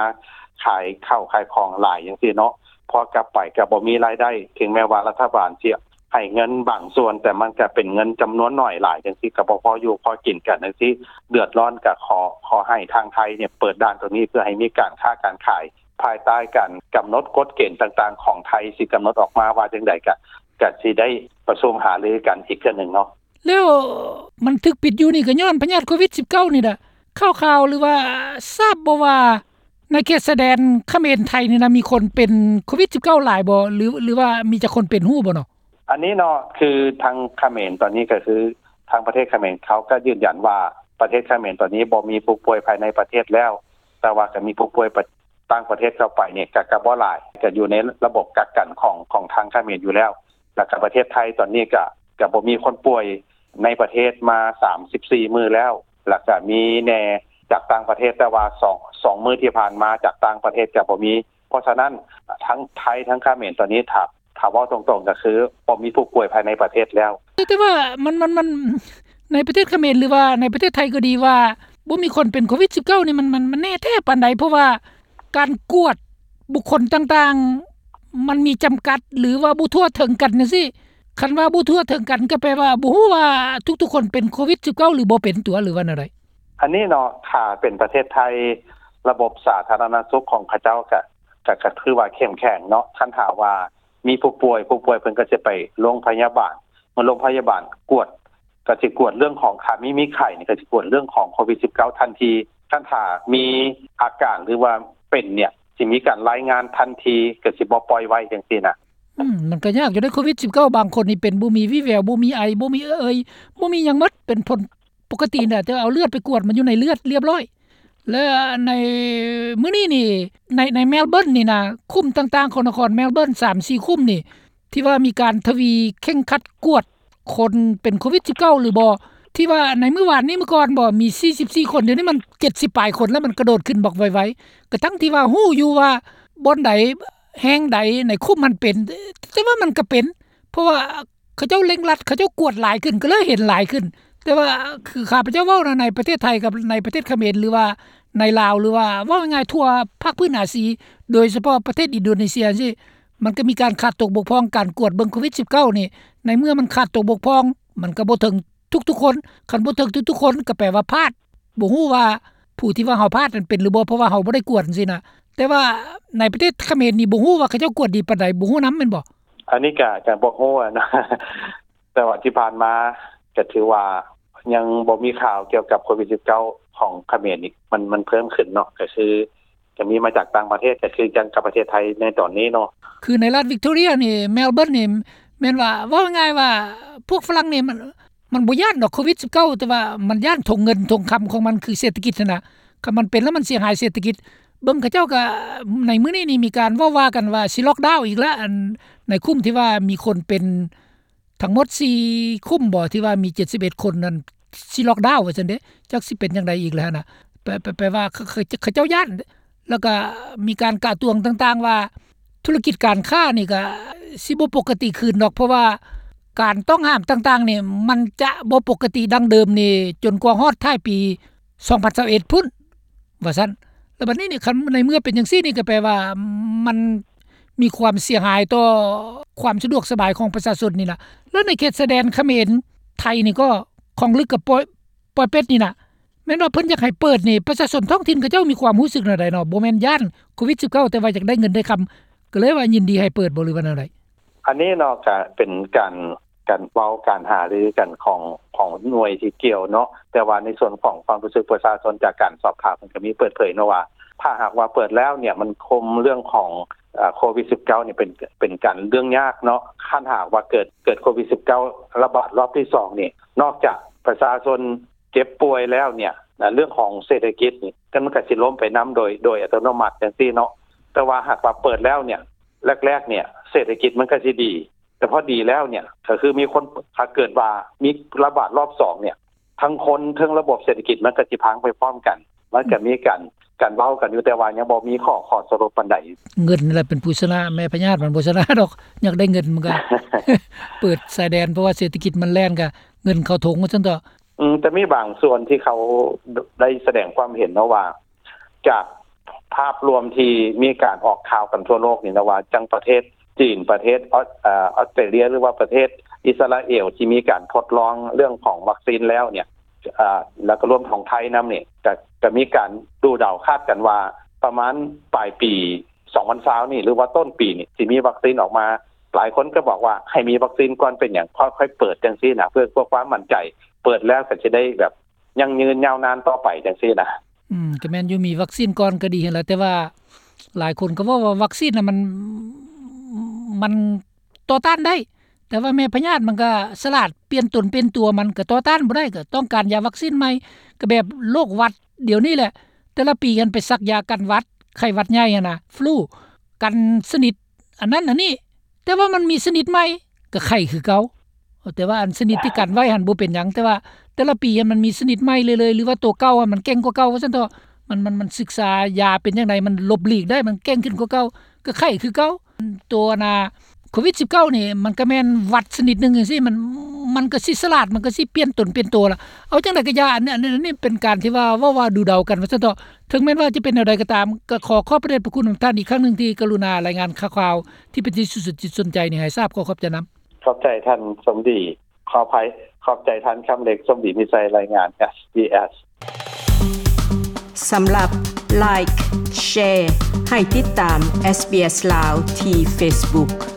ຂາຍເຂົ້າຂາຍຂອງຫຼາຍຈັ່ງຊີ້ເນາະ ພໍກັບໄປກະບໍ່ມີລາຍໄດ້ ເຖິງແມ່ນວ່າລັດຖະບານຊິໃຫ້ເງິນບາງສ່ວນ ແຕ່ມັນກະເປັນເງິນຈຳນວນໜ້ອຍຫຼາຍຈັ່ງຊີ້ ກະບໍ່ພໍຢູ່ພໍກິນກັນຈັ່ງຊີ້ ເດືອດຮ້ອນ ກະຂໍ ຂໍໃຫ້ທາງໄທເນຍເປີດດ່ານໂຕນີ້ ເພື່ອໃຫ້ມີການຄ້າການຂາຍ ພາຍໃຕ້ການກຳນົດກົດເກນຕ່າງໆຂອງໄທ ຊິກຳນົດອອກມາວ່າຈັ່ງໃດ ກະ ກະຊິໄດ້ປະຊຸມຫາລືກັນອີກເທື່ອໜຶ່ງເນາະ. ແລ້ວມັນຖືກປິດຢູ່ນີ້ ກໍຍ້ອນພະຍາດໂຄວິດ ສິບເກົ້າ ນີ້ລະ ຂ່າວໆ ຫຼືວ່າຊາບບໍ່ວ່າ ໃນເຂດຊາຍແດນຂະເໝນໄທນີ້ນະ ມີຄົນເປັນໂຄວິດ ສິບເກົ້າ ຫຼາຍບໍ່ ຫຼື ຫຼືວ່າມີຈັກຄົນເປັນ ຮູ້ບໍ່ເນາະ? ອັນນີ້ເນາະ ຄືທາງຂະເໝນຕອນນີ້ ກໍຄືທາງປະເທດຂະເໝນເຂົາກໍຢືນຢັນວ່າ ປະເທດຂະເໝນຕອນນີ້ບໍ່ມີຜູ້ປ່ວຍພາຍໃນປະເທດແລ້ວ ແຕ່ວ່າກໍມີຜູ້ປ່ວຍ ຕ່າງປະເທດເຂົ້າໄປນີ້ກະ ກະບໍ່ຫຼາຍ ກະຢູ່ໃນລະບົບກັກກັນຂອງ ຂອງທາງຂະເໝນຢູ່ແລ້ວ ແລ້ວກະປະເທດໄທຕອນນີ້ກະ ກະບໍ່ມີຄົນປ່ວຍໃນປະເທດມາສາມສິບສີ່ມື້ແລ້ວ ແລ້ວກະມີແດ່ຈາກຕ່າງປະເທດ ແຕ່ວ່າສອງ ສອງມື້ທີ່ຜ່ານມາຈາກຕ່າງປະເທດກະບໍ່ມີ. ເພາະສະນັ້ນ ທັງໄທທັງຂະເໝນຕອນນີ້ ຖ້າ ຖ້າເວົ້າຕົງໆ ກະຄືບໍ່ມີຜູ້ປ່ວຍພາຍໃນປະເທດແລ້ວ. ແຕ່ ແຕ່ວ່າມັນ ມັນ ມັນ ໃນປະເທດຂະເໝນ ຫຼືວ່າໃນປະເທດໄທກໍດີ ວ່າບໍ່ມີຄົນເປັນໂຄວິດ ສິບເກົ້າ ນີ້ ມັນ ມັນ ມັນແນ່ແທ້ປານໃດ? ເພາະວ່າ ການກວດບຸກຄົນຕ່າງໆ ມັນມີຈຳກັດ ຫຼືວ່າບໍ່ທົ່ວເຖິງກັນຈັ່ງຊີ້. ຄັນວ່າບໍ່ທົ່ວເຖິງກັນ ກໍແປວ່າບໍ່ຮູ້ວ່າທຸກໆຄົນເປັນໂຄວິດ ສິບເກົ້າ ຫຼືບໍ່ເປັນຕົວ ຫຼືວ່າແນວໃດ? ອັນນີ້ເນາະ ຖ້າເປັນປະເທດໄທ ລະບົບສາທາລະນະສຸກຂອງເຂົາເຈົ້າກະ ກະ ກະຖືວ່າເຂັ້ມແຂງເນາະ. ຄັນຖ້າວ່າ ມີຜູ້ປ່ວຍ ຜູ້ປ່ວຍເພິ່ນກໍຊິໄປໂຮງພະຍາບານ ເມື່ອໂຮງພະຍາບານກວດ ກໍຊິກວດເລື່ອງຂອງ ຖ້າມີ ມີໄຂ້ນີ້ ກໍຊິກວດເລື່ອງຂອງໂຄວິດສິບເກົ້າທັນທີ. ຄັນຖ້າມີອາການ ຫຼືວ່າເປັນເນ່ຍ ຊິມີການລາຍງານທັນທີ ກໍຊິບໍ່ປ່ອຍໄວ້ຈັ່ງຊີ້ນະ. ອືມ ມັນກໍຍາກຢູ່ເດ້ ໂຄວິດສິບເກົ້າ ບາງຄົນນີ້ເປັນ ບໍ່ມີວີ່ແວວ ບໍ່ມີໄອ ບໍ່ມີເອີ່ຍ ບໍ່ມີຫຍັງໝົດ ເປັນຜົນປົກກະຕິນະ ແຕ່ເອົາເລືອດໄປກວດ ມັນຢູ່ໃນເລືອດລຽບຮ້ອຍ. ແລະໃນມື້ນີ້ນີ້ ໃນ ໃນແມລເບີນນີ້ນະ ຄຸ້ມຕ່າງໆຂອງນະຄອນແມລເບີນ ສາມສີ່ຄຸ້ມນີ້ ທີ່ວ່າມີການທະວີເຄັ່ງຄັດກວດຄົນເປັນໂຄວິດສິບເກົ້າ ຫຼືບໍ່ ທີ່ວ່າໃນມື້ວານນີ້ ມື້ກ່ອນບໍ່ ມີສີ່ສິບສີ່ຄົນ ດຽວນີ້ມັນເຈັດສິບປາຍຄົນແລ້ວ ມັນກະໂດດຂຶ້ນບັກໄວໆ. ກະທັງທີ່ວ່າຮູ້ຢູ່ວ່າບ່ອນໃດ ແຫ່ງໃດໃນຄຸ້ມຫັ້ນເປັນ ແຕ່ວ່າມັນກະເປັນ ເພາະວ່າເຂົາເຈົ້າເລັ່ງລັດ ເຂົາເຈົ້າກວດຫຼາຍຂຶ້ນ ກໍເລີຍເຫັນຫຼາຍຂຶ້ນ. ແຕ່ວ່າຄືຂ້າພະເຈົ້າເວົ້ານະ ໃນປະເທດໄທກັບໃນປະເທດຂະເໝນ ຫຼືວ່າໃນລາວ ຫຼືວ່າເວົ້າງ່າຍໆທົ່ວພາກພື້ນອາຊີ ໂດຍສະເພາະປະເທດອິນໂດເນເຊຍຈັ່ງຊີ້ ມັນກໍມີການຂາດຕົກບົກຜ່ອງ ການກວດເບິ່ງໂຄວິດສິບເກົ້ານີ້ ໃນເມື່ອມັນຂາດຕົກບົກຜ່ອງ ມັນກໍບໍ່ເຖິງທຸກໆຄົນ ຄັນບໍ່ເຖິງທຸກໆຄົນ ກໍແປວ່າພາດ ບໍ່ຮູ້ວ່າຜູ້ທີ່ວ່າເຮົາພາດນັ້ນເປັນຫຼືບໍ່ ເພາະວ່າເຮົາບໍ່ໄດ້ກວດຈັ່ງຊີ້ນະ. ແຕ່ວ່າໃນປະເທດຂະເໝນນີ້ ບໍ່ຮູ້ວ່າເຂົາເຈົ້າກວດດີປານໃດ ບໍ່ຮູ້ນຳແມ່ນບໍ່? ອັນນີ້ກະ ກະບໍ່ຮູ້ນະ ແຕ່ວ່າທີ່ຜ່ານມາ ກະຖືວ່າຍັງບໍ່ມີຂ່າວກ່ຽວກັບໂຄວິດສິບເກົ້າຂອງຂະເໝນນີ້ ມັນ ມັນເພີ່ມຂຶ້ນເນາະ ກະຄື ກະມີມາຈາກຕ່າງປະເທດ ກະຄືກັນກັບປະເທດໄທໃນຕອນນີ້ເນາະ. ຄືໃນລັດວິກຕໍເຣັຍນີ້ ແມລເບີນນີ້ ແມ່ນວ່າ ເວົ້າງ່າຍໆວ່າ ພວກຝຣັ່ງນີ້ມັນ ມັນບໍ່ຢ້ານດອກໂຄວິດສິບເກົ້າ ແຕ່ວ່າມັນຢ້ານຖົງເງິນຖົງຄຳຂອງມັນ ຄືເສດຖະກິດຫັ້ນນະ. ຄັນມັນເປັນແລ້ວມັນເສຍຫາຍເສດຖະກິດ. ເບິ່ງເຂົາເຈົ້າກະ ໃນມື້ນີ້ນີ້ມີການເວົ້າວ່າກັນວ່າຊິລັອກດາວອີກລະ ອັນໃນຄຸ້ມທີ່ວ່າມີຄົນເປັນທັງໝົດສີ່ຄຸ້ມບໍ່ ທີ່ວ່າມີເຈັດສິບເອັດຄົນນັ້ນ ຊິລັອກດາວວ່າຊັ້ນເດ້. ຈັກຊິເປັນຈັ່ງໃດອີກແລ້ວຫັ້ນນະ ແປ ແປ ແປວ່າ ເຂົາ ເຂົາ ເຂົາເຈົ້າຢ້ານ. ແລ້ວກະມີການກະຕວງຕ່າງໆວ່າ ທຸລະກິດການຄ້ານີ້ກະຊິບໍ່ປົກກະຕິຄືນດອກ ເພາະວ່າການຕ້ອງຫ້າມຕ່າງໆນີ້ ມັນຈະບໍ່ປົກກະຕິດັ່ງເດີມນີ້ ຈົນກວ່າຮອດທ້າຍປີສອງພັນຊາວເອັດພຸ້ນ ວ່າຊັ້ນ. ແລ້ວບັດນີ້ນີ້ ຄັນໃນເມື່ອເປັນຈັ່ງຊີ້ນີ້ ກໍແປວ່າມັນມີຄວາມເສຍຫາຍຕໍ່ຄວາມສະດວກສະບາຍຂອງປະຊາຊົນນີ້ລະ. ແລ້ວໃນເຂດຊາຍແດນຂະເໝນໄທນີ້ກໍ ຂອງລຶກກັບປອຍ ປອຍເປັດນີ້ນະ ແມ່ນວ່າເພິ່ນຢາກໃຫ້ເປີດນີ້ ປະຊາຊົນທ້ອງຖິ່ນເຂົາເຈົ້າມີຄວາມຮູ້ສຶກແນວໃດເນາະ? ບໍ່ແມ່ນຢ້ານໂຄວິດສິບເກົ້າ ແຕ່ວ່າຢາກໄດ້ເງິນໄດ້ຄຳ ກໍເລີຍວ່າຍິນດີໃຫ້ເປີດບໍ່ ຫຼືວ່າແນວໃດ? ອັນນີ້ເນາະ ກະເປັນການ ການເວົ້າ ການຫາລືກັນຂອງ ຂອງໜ່ວຍທີ່ກ່ຽວເນາະ. ແຕ່ວ່າໃນສ່ວນຂອງຄວາມຮູ້ສຶກປະຊາຊົນ ຈາກການສອບຖາມ ມັນກະມີເປີດເຜີຍເນາະວ່າ ຖ້າຫາກວ່າເປີດແລ້ວເນ່ຍ ມັນຄຸມເລື່ອງຂອງ ເອີ ໂຄວິດສິບເກົ້ານີ້ ເປັນ ເປັນການເລື່ອງຍາກເນາະ. ຄັນຫາກວ່າເກີດ ເກີດໂຄວິດສິບເກົ້າລະບາດລອບທີສອງນີ້ ນອກຈາກປະຊາຊົນ ເຈັບປ່ວຍແລ້ວເນ່ຍ ເລື່ອງຂອງເສດຖະກິດນີ້ ກໍມັນກໍຊິລົ້ມໄປນຳໂດຍ ໂດຍອັດຕະໂນມັດຈັ່ງຊີ້ເນາະ. ແຕ່ວ່າຫາກວ່າເປີດແລ້ວເນ່ຍ ແລກໆເນ່ຍ ເສດຖະກິດມັນກໍຊິດີ ແຕ່ພໍດີແລ້ວເນ່ຍ ກໍຄືມີຄົນ ຖ້າເກີດວ່າມີລະບາດລອບສອງເນ່ຍ ທັງຄົນ ທັງລະບົບເສດຖະກິດ ມັນກໍຊິພັງໄປພ້ອມກັນ. ມັນກໍມີການ ການເວົ້າກັນຢູ່ ແຕ່ວ່າຍັງບໍ່ມີຂໍ້ ຂໍ້ສະຫຼຸບປານໃດ. ເງິນແຫຼະເປັນຜູ້ຊະນະ ແມ່ພະຍາດມັນບໍ່ຊະນະດອກ. ຢາກໄດ້ເງິນມັນກໍ ເປີດຊາຍແດນ ເພາະວ່າເສດຖະກິດມັນແລ່ນ ກໍເງິນເຂົ້າຖົງວ່າຊັ້ນເຖາະ. ອືມ ແຕ່ມີບາງສ່ວນທີ່ເຂົາໄດ້ສະແດງຄວາມເຫັນເນາະວ່າ ຈາກພາບລວມທີ່ມີການອອກຂ່າວກັນທົ່ວໂລກນີ້ນະ ວ່າຈັ່ງປະເທດຈີນ ປະເທດ ອອສ ເອີ ອອສເຕຣເລຍ ຫຼືວ່າປະເທດອິດສະຣາເອວ ທີ່ມີການທົດລອງເລື່ອງຂອງວັກຊີນແລ້ວເນ່ຍ ເອີ ແລ້ວກໍລວມຂອງໄທນຳນີ້ ກະ ກະມີການດູເດົາຄາດກັນວ່າ ປະມານປາຍປີສອງພັນຊາວນີ້ ຫຼືວ່າຕົ້ນປີນີ້ ຊິມີວັກຊີນອອກມາ. ຫຼາຍຄົນກໍບອກວ່າໃຫ້ມີວັກຊີນກ່ອນ ເປັນຫຍັງ ຄ່ອຍ ຄ່ອຍເປີດຈັ່ງຊີ້ນະ ເພື່ອ ເພື່ອຄວາມໝັ້ນໃຈ. ເປີດແລ້ວກໍຈະໄດ້ແບບ ຢັ້ງຢືນຍາວນານຕໍ່ໄປຈັ່ງຊີ້ນະ. ອືມ ກໍແມ່ນຢູ່ ມີວັກຊີນກ່ອນກໍດີຫັ້ນລະ ແຕ່ວ່າຫຼາຍຄົນກໍເວົ້າວ່າວັກຊີນນະ ມັນ ມັນຕໍ່ຕ້ານໄດ້ ແຕ່ວ່າແມ່ພະຍາດມັນກໍສະຫຼາດ ປ່ຽນຕົນປ່ຽນຕົວ ມັນກໍຕໍ່ຕ້ານບໍ່ໄດ້ ກໍຕ້ອງການຢາວັກຊີນໃໝ່. ກໍແບບໂລກຫວັດດຽວນີ້ແຫຼະ ແຕ່ລະປີຫັ້ນໄປສັກຢາກັນຫວັດ ໄຂ້ຫວັດໃຫຍ່ຫັ້ນນະ ຟລູ ກັນຊະນິດອັນນັ້ນອັນນີ້ ແຕ່ວ່າມັນມີຊະນິດໃໝ່ ກໍໄຂ້ຄືເກົ່າ. ແຕ່ວ່າອັນຊະນິດທີ່ກັນໄວ້ຫັ້ນບໍ່ເປັນຫຍັງ ແຕ່ວ່າແຕ່ລະປີຫັ້ນມັນມີຊະນິດໃໝ່ເລື້ອຍໆ ຫຼືວ່າໂຕເກົ່າຫັ້ນມັນເກັ່ງກວ່າເກົ່າວ່າຊັ້ນເຖາະ. ມັນ ມັນ ມັນສຶກສາຢາເປັນຈັ່ງໃດ ມັນຫຼົບຫຼີກໄດ້ ມັນເກັ່ງຂຶ້ນກວ່າເກົ່າ ກໍໄຂ້ຄືເກົ່າ. ໂຕ ອັນນ່າ ໂຄວິດສິບເກົ້ານີ້ ມັນກໍແມ່ນຫວັດຊະນິດໜຶ່ງຈັ່ງຊີ້ ມັນ ມັນກໍຊິສະຫຼາດ ມັນກໍຊິປ່ຽນຕົນປ່ຽນໂຕລະ. ເອົາຈັ່ງໃດກໍຢ່າ ອັນນີ້ ອັນນີ້ ອັນນີ້ເປັນການທີ່ວ່າເວົ້າວ່າດູເດົາກັນວ່າຊັ້ນເຖາະ. ເຖິງແມ່ນວ່າຈະເປັນແນວໃດກໍຕາມ ກໍຂໍຂອບພະເດດພະຄຸນນຳທ່ານອີກຄັ້ງໜຶ່ງ ທີ່ກະລຸນາລາຍງານຂ່າວໆ ທີ່ເປັນທີ່ສຸດສົນໃຈນີ້ໃຫ້ຊາບ. ຂໍຂອບໃຈນຳ. ຂອບໃຈທ່ານສົມດີ ຂໍອະໄພ ຂອບໃຈທ່ານຄຳເລັກ ສົມດີ ມີໄຊ ລາຍງານ ເອສບີເອສ. ສຳລັບ Like Share ໃຫ້ຕິດຕາມ SBS ລາວ ທີ່ Facebook.